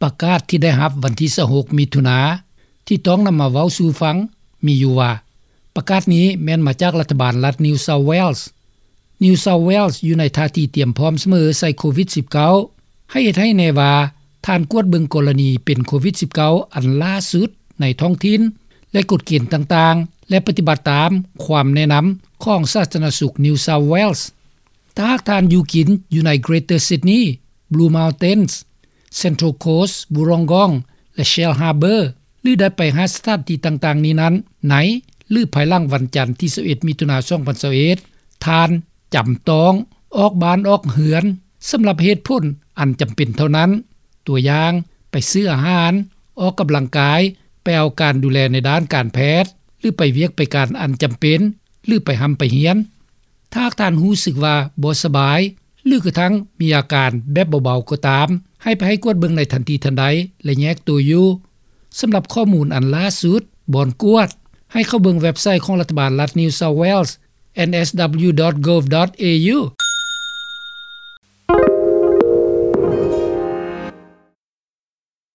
ປະກາດທີ່ໄດ້ຮັບວັນທີຊາວຫົກ ມິຖຸນາ ທີ່ຕ້ອງນຳມາເວົ້າສູ່ຟັງ ມີຢູ່ວ່າ ປະກາດນີ້ແມ່ນມາຈາກລັດຖະບານລັດ New South Wales. New South Wales ຢູ່ໃນທ່າທີຕຽມພ້ອມສະເໝີໃສ່ໂຄວິດ-19. ໃຫ້ເຮັດໃຫ້ແນ່ວ່າ ທ່ານກວດເບິ່ງກໍລະນີເປັນໂຄວິດ-19 ອັນຫຼ້າສຸດໃນທ້ອງຖິ່ນ ແລະ ກົດເກນຕ່າງໆ ແລະ ປະຕິບັດຕາມຄວາມແນະນຳຂອງສາທາລະນະສຸກ New South Wales. ຖ້າຫາກທ່ານຢູ່ກິນຢູ່ໃນ Greater Sydney, Blue Mountains, Central Coast, Wollongong ແລະ Shellharbour ຫຼື ໄດ້ໄປຮາດສະຖານທີ່ຕ່າງໆນີ້ນັ້ນ ໃນ ຫຼື ພາຍຫຼັງວັນຈັນທີຊາວເອັດ ມິຖຸນາ ສອງພັນຊາວເອັດ ທ່ານຈຳຕ້ອງອອກບ້ານອອກເຮືອນ ສຳລັບເຫດຜົນອັນຈຳເປັນເທົ່ານັ້ນ, ຕົວຢ່າງ ໄປຊື້ອາຫານ, ອອກກຳລັງກາຍ, ໄປເອົາການດູແລໃນດ້ານການແພດ ຫຼື ໄປວຽກໄປການອັນຈຳເປັນ ຫຼື ໄປຮ່ຳໄປຮຽນ. ຖ້າຫາກທ່ານຮູ້ສຶກວ່າບໍ່ສະບາຍ ຫຼື ກະທັ່ງມີອາການແບບເບົາໆກໍຕາມ, ໃຫ້ໄປໃຫ້ກວດເບິ່ງໃນທັນທີທັນໃດ ແລະ ແຍກໂຕຢູ່. ສຳລັບຂໍ້ມູນອັນຫຼ້າສຸດ, ບ່ອນກວດ, ໃຫ້ເຂົ້າເບິ່ງເວັບໄຊຂອງລັດຖະບານລັດ New South Wales, N S W dot gov dot A U.